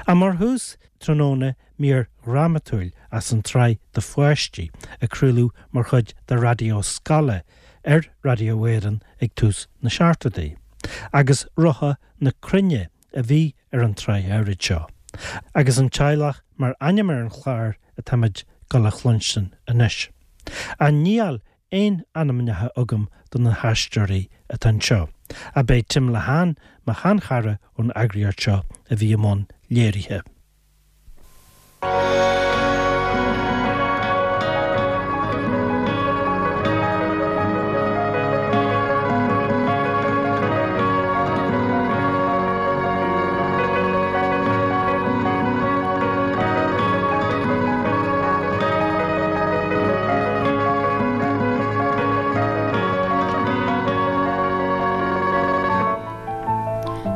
Ach mar thús tráthnóna mír dhrámatúil as an tsraith do pháistí a craoladh mar chuid de Raidió Scoile ar Raidió Éireann ag tús na seachtóidí. Agus Rotha na Cruinne a bhí ar an tsraith áirid seo. Agus An Teaghlach mar ainm ar an chlár atáimid dul a chluinstin anois. Ach níl aon ainmneacha agam do na haisteoirí atá anseo, ach b'é Tim Lehane, mo sheanchara ón eagraíocht seo, a bhí i mbun léirithe.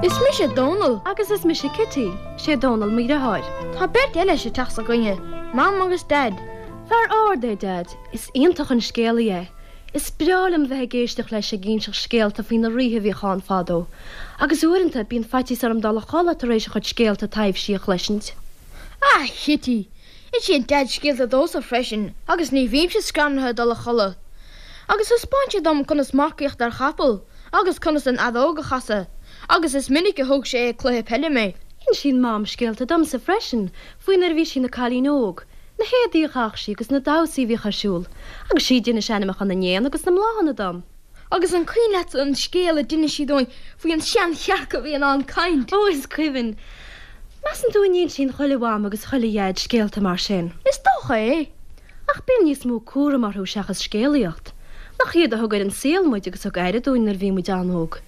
Is mise Dónall. Agus is mise Cití. Sé Dónall mo dheartháir. Tá beirt eile sa teach s'againne, Mam agus Daid. Fear ard é Daid. Is iontach an scéalaí é. Is breá liom bheith ag éisteacht leis ag inseacht scéalta faoi na ríthe a bhíodh ann fadó. Agus uaireanta, bíonn faitíos orm dul a chodladh tar éis a chuid scéalta taibhsí a chloisint. Ah, Chití! Insíonn Daid scéalta domhsa freisin agus ní bhímse scanraithe dul a chodladh. Agus thaispeáin sé dom conas marcaíocht ar chapall agus conas an fheadóg a chasadh, agus is minic a thug sé ag cluiche peile mé. Insíonn Mam scéalta domsa freisin faoi nuair a bhí sí ina cailín óg, na héadaí a chaitheadh sí agus na damhsaí a bhíodh ar siúl, agus sí a d'inis ainmneacha na n-éan agus na mbláthanna dom. Agus an cuimhin leat an scéal a d'inis sí dúinn faoi an seanchearc a bhí in ann caint? Ó, is cuimhin. Measann tú an n-insíonn chuile mham agus chuile dhaid scéalta mar sin? Is dócha é. Ach bíonn níos mó cúraim orthu seachas scéalaíocht. Nach iad a thug ar an saol muid agus thug aire dúinn nuair a bhí muid an-óg?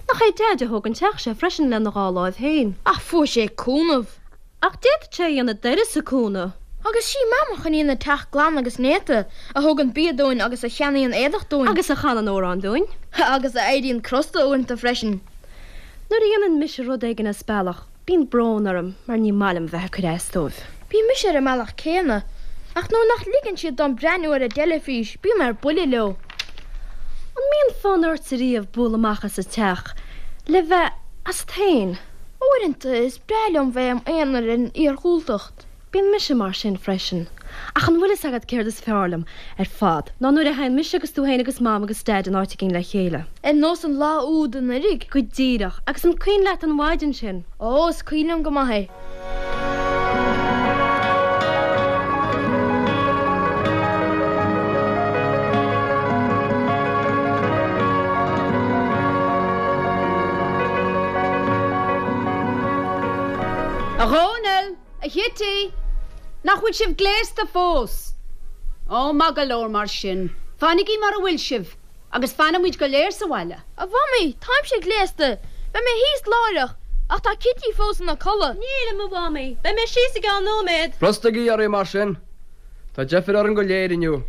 Nach é Daid a thóg an teach seo freisin lena dhá láimh féin? Ach fuair sé cúnamh. Ach d'fhéadfadh sé a dhéanamh d'uireasa cúnamh. Agus sí Mam a choinníonn an teach glan agus néata, a thugann bia dúinn agus a cheannaíonn éadach dúinn. Agus a chanann amhráin dúinn. Agus a éiríonn crosta uaireanta freisin. Nuair a dhéanann mise rud éigin as bealach, bíonn brón orm mar ní maith liom bheith ag cur as dóibh. Bíonn mise ar an mbealach céanna, ach nuair nach ligeann siad dom breathnú ar an dteilifís, bím ar buile leo. An mbíonn fonn ortsa riamh bualadh amach as an teach le bheith asat féin? Uaireanta is breá liom bheith im aonar ar an iargúltacht. Bíonn mise mar sin freisin. Ach an bhfuil fhios agat céard is fearr liom ar fad ná nuair a théann mise agus tú féin agus Mam agus Daid in áit éigin le chéile. Ar nós an lá úd anuraidh. Go díreach. Agus an cuimhin leat an mhaidin sin? Ó, is cuimhin liom go maith é. A Dhónaill! A Chití! Nach bhfuil sibh gléasta fós? Ó, maith go leor mar sin. Fanaigí mar a bhfuil sibh agus fanfaidh muid go léir sa bhaile. A Mhamaí, táimse gléasta. Beidh mé thíos láithreach. Ach tá Cití fós ina codladh. Nílim, a Mhamaí. Beidh mé síos i gceann nóiméad. Brostaigí oraibh mar sin. Tá deifir orainn go léir inniu.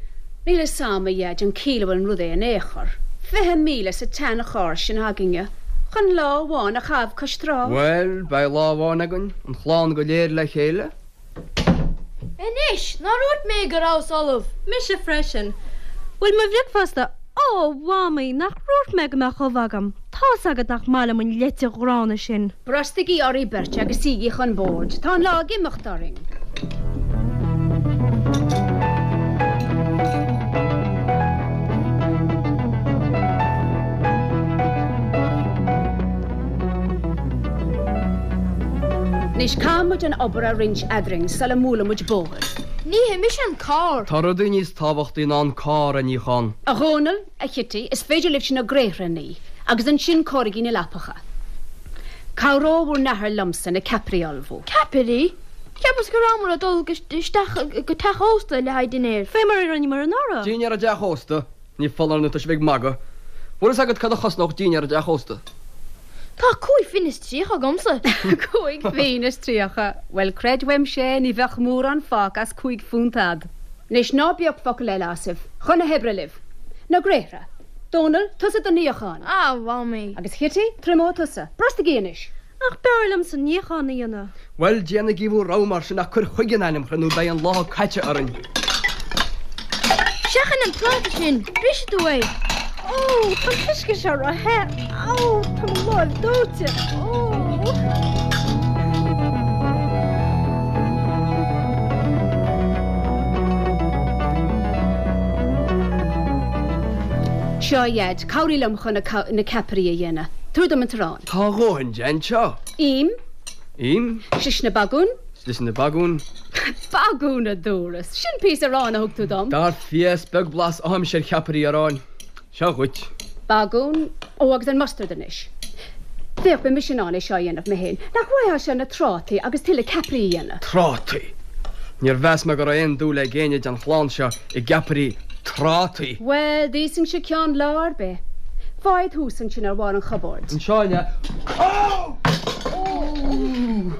Níl fhios a'm, a Dhaid, an ciall a bhfuil an rud é in aon chor. 20,000 sa tsean-charr sin againne chun lá amháin a chaitheamh cois trá. Bhuel, beidh lá amháin againn, an chlann go léir le chéile. Anois, nár dhúirt mé go rabhas ullamh? Mise freisin. Bhfuil mo bhricfeasta? Ó, a Mhamaí, nach ndúirt mé go mbeadh ubh agam? Tá's agat nach maith liom an leite ghránna sin. Brostaigí oraibh beirt agus suígí chun boird, tá an lá ag imeacht orainn. Anois caithfidh muid an obair a roinnt eadrainn sula mbualann muid bóthar. Nífidh mise an carr. Tá rudaí níos tábhachtaí ná an carr a níochán. A Dhónaill, a Chití, is féidir libhse na gréithre a ní, agus ansin cóirigí na leapacha. Cabhróidh bhur n-athair liomsa na ceapairí a ullmhú. Ceapairí? Cheapas go rabhamar ag dul isteach go teach ósta le haghaidh dinnéir. Fé mar a rinneamar anuraidh. Dinnéar i dteach ósta? Ní foláir nó tá sibh ag magadh. Bhfuil fhios agat cad a chosnódh dinnéar i dteach ósta? Tá cúig phingin is tríocha agamsa. Cúig phingin is tríocha? Bhuel, creid uaimse é, ní bheadh mórán fágtha as cúig phunt a'd. Anois ná bíodh focal eile asaibh. Chun na hoibre libh. Na gréithre. Dónall, tusa don níochán. A Mhamaí. Agus Chití, triomóidh tusa. Brostaigí anois. Ach b'fhearr liomsa an níochán a dhéanamh. Bhuel, déanaigí bhur rogha mar sin ach cuir chuige in ainm Chroí nó beidh an lá caite orainn. Seachain an pláta sin, brisfidh tú é. Ó, tá an t-uisce seo ró-the. Ó, tá mo láimh dóite. Ó. Seo, a Dhaid, cabhraigh liom chun na ceapairí a dhéanamh. Tabhair dom an t-arán. Tá a dhóthain de anseo. Im. Im. Slisne bagún. Slisne bagún. Bagún, a dúras. Sin píosa aráin a thug tú dom. Dar fia, is beag blas a fhaighimse ar cheapairí aráin. Seo dhuit. Bagún. Ó, agus an mustard anois. Féach, beidh mise in ann é seo a dhéanamh mé féin. Nach bhfaightheá seo na trátaí agus tuilleadh ceapairí a dhéanamh? Trátaí! Níor mheas mé go raibh aon dúil ag éinne den chlann seo i gceapairí trátaí. Bhuel, d'íosfainnse ceann lá ar bith. Faigh iad thuas ansin ar bharr an chupboird. Anseo, an ea? Ó!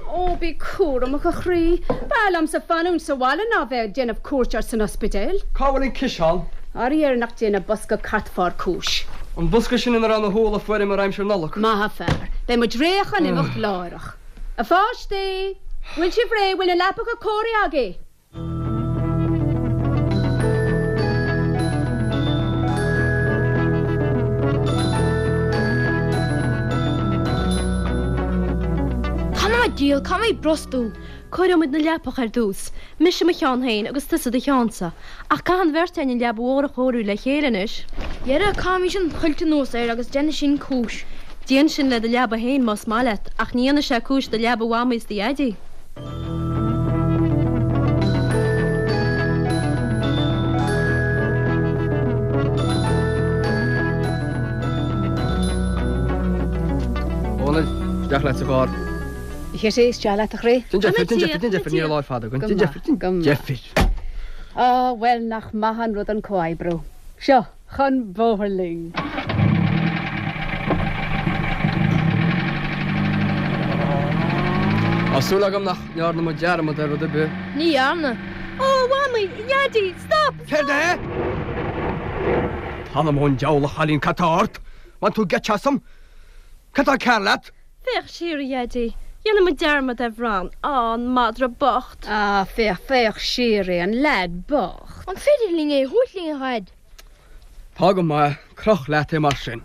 Ó, bí cúramach, a chroí. B'fhearr liomsa fanúint sa bhaile ná bheith ag déanamh cuairt ort san ospidéal. Cá bhfuil an ciseán? Faraor nach ndéanfaidh bosca cairtpháir cúis. An bosca sin ina raibh na húlla a fuaireamar aimsir Nollag. Maith an fear. Beidh muid réidh chun imeacht láithreach. A pháistí! Bhfuil sibh réidh? Bhfuil na leapacha cóirithe agaibh? T'anam 'on diabhal, caithfidh mé brostú. Cóireoidh muid na leapacha ar dtús, mise mo cheann féin agus tusa do cheannsa, ach caithfidh an bheirt againn an leaba mhór a chóiriú le chéile anois. Dhera, caithfimis an chuilt anuas air agus déanfaidh sin cúis. Déan sin le do leaba féin más maith leat, ach ní dhéanfaidh sé cúis do leaba Mhamaí is do Dhaidí. A Dhónaill, isteach leat sa charr. A Chití, isteach leat a chroí. Déan deifir, déan deifir, déan deifir, níl an lá fada againn. Déan deifir, déan deifir. Á, bhuel, nach maith an rud an comhoibriú. Seo, chun bóthair linn. Tá súil agam nach ndearna muid dearmad ar rud ar bith. Ní dhearna. Ó, a Mhamaí, a Dhaidí, stop, stop! Céard é? T'anam ón diabhal, a chailín, cad tá ort? Bhain tú geit asam? Cad tá cearr leat? Féach siar, a Dhaidí. Dhéanfaidh muid dearmad ar Bhran. Á, an madra bocht! Á, féach, féach siar é, an leaid bocht! An féidir linn é a thabhairt linn, a Dhaid? Tá go maith, croch leat é mar sin.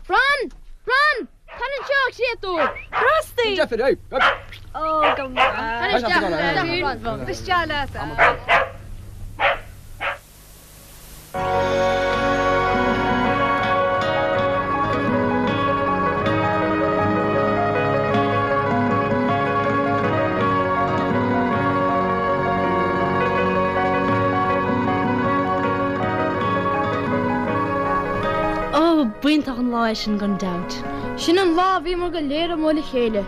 Bran! Bran! Tar anseo, a chréatúr! Brostaigh! Deifir, ei! Ó, go maith. Tar isteach, a Bhran. Isteach leat, a. Ó, b'iontach an lá é sin gan dabht. Sin an lá a bhíomar go léir amuigh le chéile.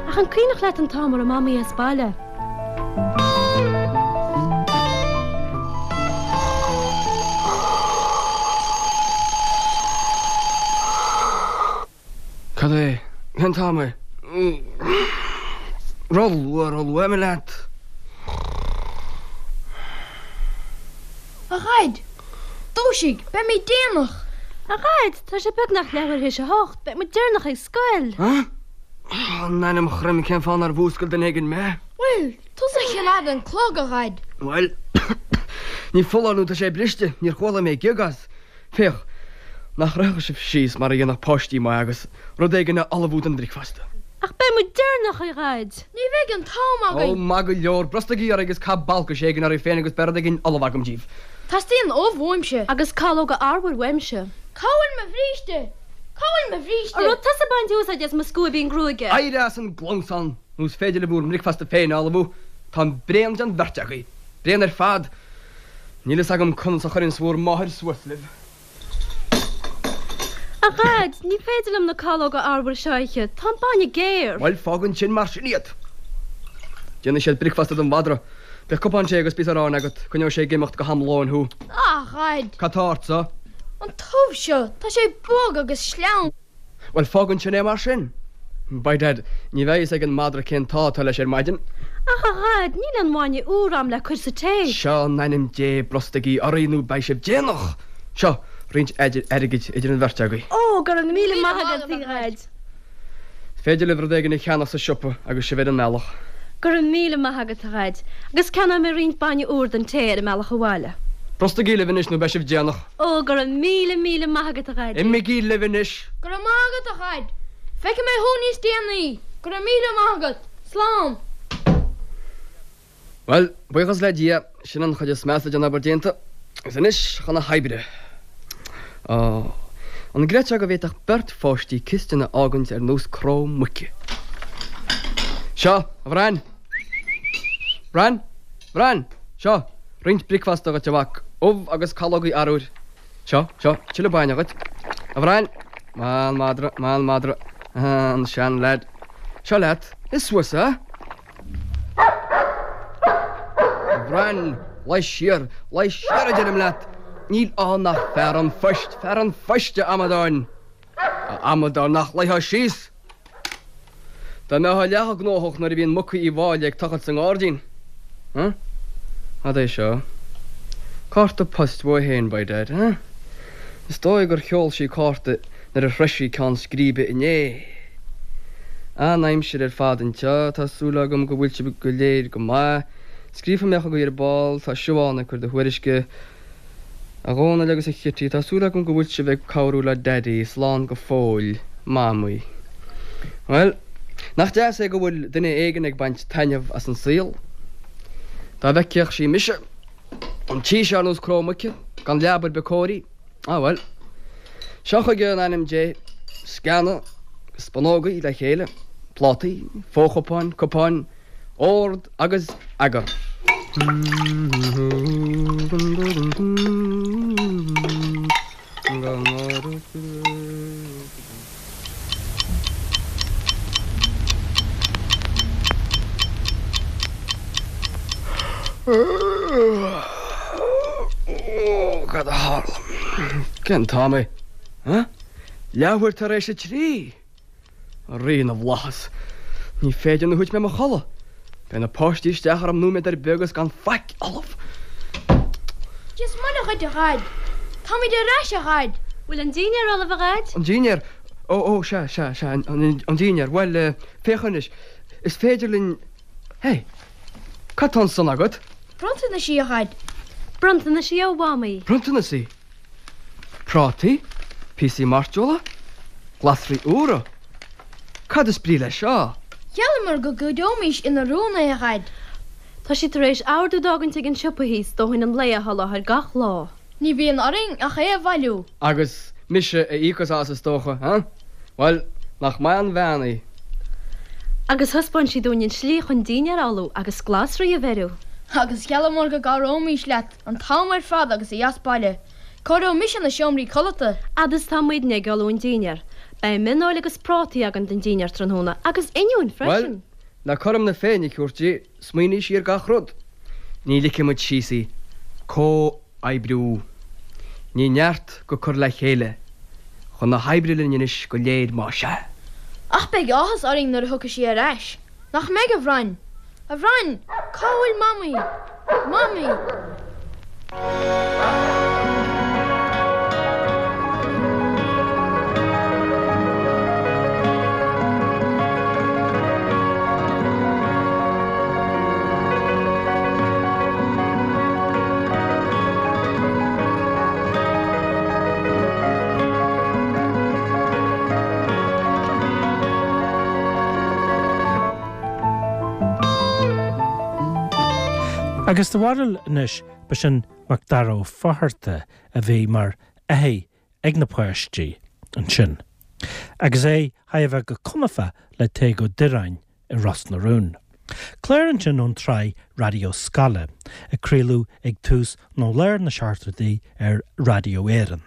Ach an cuimhneach leat an t-am a raibh Mamaí as baile? Cad é? Cén t-am é? Ró-luath, ró-luath, imigh leat. A Dhaid! Dúisigh! Beimid déanach! A Dhaid, tá sé beagnach leathuair théis a hocht. Beidh muid deireanach ag scoil! In ainm Chroim, cén fáth nár mhúscail duine éigin mé? Bhuel, tusa a choimeád an clog, a Dhaid. Bhuel, ní foláir nó tá sé briste, níor chuala mé gioc as. Féach, nach rachadh sibh síos mar a dhéanfadh páistí maithe agus rud éigin a ullmhú don bhricfeasta. Ach beidh muid deireanach, a Dhaid. Ní bheidh an t-am againn. Ó, maith go leor, brostaigí oraibh agus caith balcais éigin oraibh féin agus beidh rud éigin ullamh agam díbh. Teastaíonn ubh uaimse. Agus calóga arbhair uaimse. Cá bhfuil mo bhríste? Cá bhfuil mo bhríste? An raibh tusa ag baint úsáid as mo scuaibín gruaige? Éirigh as an gclamhsán nó is féidir libh bhur mbricfeasta féin a ullmhú. Táim bréan den bheirt agaibh. Bréan ar fad. Níl fhios agam conas a chuireanns bhur máthair suas libh. A Dhaid, ní féidir liom na calóga arbhair seo a ithe, tá an bainne géar. Bhuel, fág ansin mar sin iad. Déanfaidh siad bricfeasta don mhadra. Beidh cupán tae agus píosa aráin agat, coinneoidh sé ag imeacht go ham lóin thú. A Dhaid! Cad tá ortsa? An t-ubh seo, tá sé bog agus sleamhain. Bhuel, fág ansin é mar sin. By dad, ní bheidh fhios ag an madra cén t-ádh atá leis ar maidin. Ach, a Dhaid, níl aon bhainne úr a'm le cur sa tae. Seo, in ainm Dé, brostaigí oraibh nó beidh sibh déanach! Seo, roinnt airgid idir an bheirt agaibh. Ó, go raibh míle maith agat, a Dhaid. Is féidir libh rud éigin a cheannach sa siopa agus sibh ar an mbealach. Go raibh míle maith agat, a Dhaid, agus ceannóidh mé roinnt bainne úr don tae ar an mbealach abhaile. Brostaigí libh anois nó beidh sibh déanach. Ó, go raibh míle, míle maith agat, a Dhaidí. Imígí libh anois. Go raibh maith agat, a Dhaid. Feicfidh mé thú níos déanaí. Go raibh míle maith agat. Slán. Bhuel, buíochas le Dia, sin an chuid is measa den obair déanta. Agus anois chun na hoibre. Á, an gcreidfeá go bhféadfadh beirt pháistí cistin a fhágaint ar nós cró muice? Seo, a Bhrain! Bran! Bran! Seo, roinnt bricfeasta dhuit, a mhac, ubh agus calógaí arbhair. Seo, seo, tuilleadh bainne dhuit. A Bhrain! Maith an madra, maith an madra. An seanleaid. Seo leat, ith suas é! A Bhrain, luigh siar, luigh siar a deirim leat! Níl ann ach fear an phoist, fear an phoist, a amadáin! A amadáin, nach luífeá síos! Dá mbeifeá leath gnóthach nuair a bhíonn muca Uí Mháille ag tochailt sa ngairdín. Huh? Cad é seo? Cárta poist uaithi féin, by dad, huh? Is dóigh gur sheol sí cárta nuair a shroich sí ceann scríbe inné. An-aimsir ar fad anseo, tá súil agam go bhfuil sibh go léir go maith. Scríobfaidh mé chugaibh ar ball, tá Siobhán ag cur do thuairisce. A Dhónaill agus a Chití, tá súil agam go bhfuil sibh ag cabhrú le Daidí, slán go fóill, Mamaí. Bhuel, nach deas é go bhfuil duine éigin ag baint taitneamh as an saol? Dá bhfeicfeadh sí mise, an tí seo ar nós cró muice, gan leaba ar bith cóirithe. Ah bhuel. Seo chuige in ainm Dé, sceana agus spúnógaí le chéile, plátaí, fo-chupáin, cupáin, ord agus eagar. Cad a tharla? Cén t-am é? Leathuair tar éis a 3! A Rí na bhFlaitheas, ní féidir nó thit mé i mo chodladh. Beidh na páistí isteach orm nóiméad ar bith agus gan faic ullamh. Dia is Muire dhuit, a Dhaid. Táimid ar ais, a Dhaid. Bhfuil an dinnéar ullamh, a Dhaid? An dinnéar? Ó, ó, sea, sea, sea, an dinnéar. Bhuel, féach anois, is féidir linn. Hé! Cad tá ansan agat? Bronntanaisí, a Dhaid. Bronntanaisí ó Mhamaí. Bronntanaisí? Prátaí? Píosaí mairteola? Glasraí úra? Cad is brí leis seo? Gheallamar go gcuideoimis ina rún é, a Dhaid. Tá sí tar éis ordú d'fhágaint ag an siopa thíos dóthain an lae a sholáthar gach lá. Ní bhíonn orainn ach é a bhailiú. Agus mise a íocfas as, is dócha, huh? Bhuel, nach maith an bhean í? Agus thaispeáin sí dúinn an tslí chun dinnéar a ullmhú agus glasraí a bheiriú. Agus gheallamar go gcabhróimis leat An t-am ar fad agus í as baile, cóireoidh mise na seomraí codlata. Fhad is atá muidne ag ullmhú an dinnéir, beidh mionfheoil agus prátaí againn don dinnéar tráthnóna, agus oinniúin freisin. Bhuel, le cothrom na Féinne a thabhairt di, smaoinigh sí ar gach rud. Ní ligfidh muid síos í. Comhoibriú. Ní neart go cur le chéile. Chun na hoibre linn anois go léir más ea. Ach beidh áthas orainn nuair a thiocfaidh sí ar ais. Nach mbeidh, a Bhrain? A Bhrain, cá bhfuil Mamaí? Mamaí! Agus do bharúil anois, ba sin Macdara Ó Fátharta a bhí mar fhathaigh ag na páistí ansin, agus é thar a bheith go conafa le Tadhg Ó Direáin i Ros na Rún. Clár ansin ón tsraith Raidió Scoile, a craoladh ag tús nó lár na seachtóidí ar Raidió Éireann.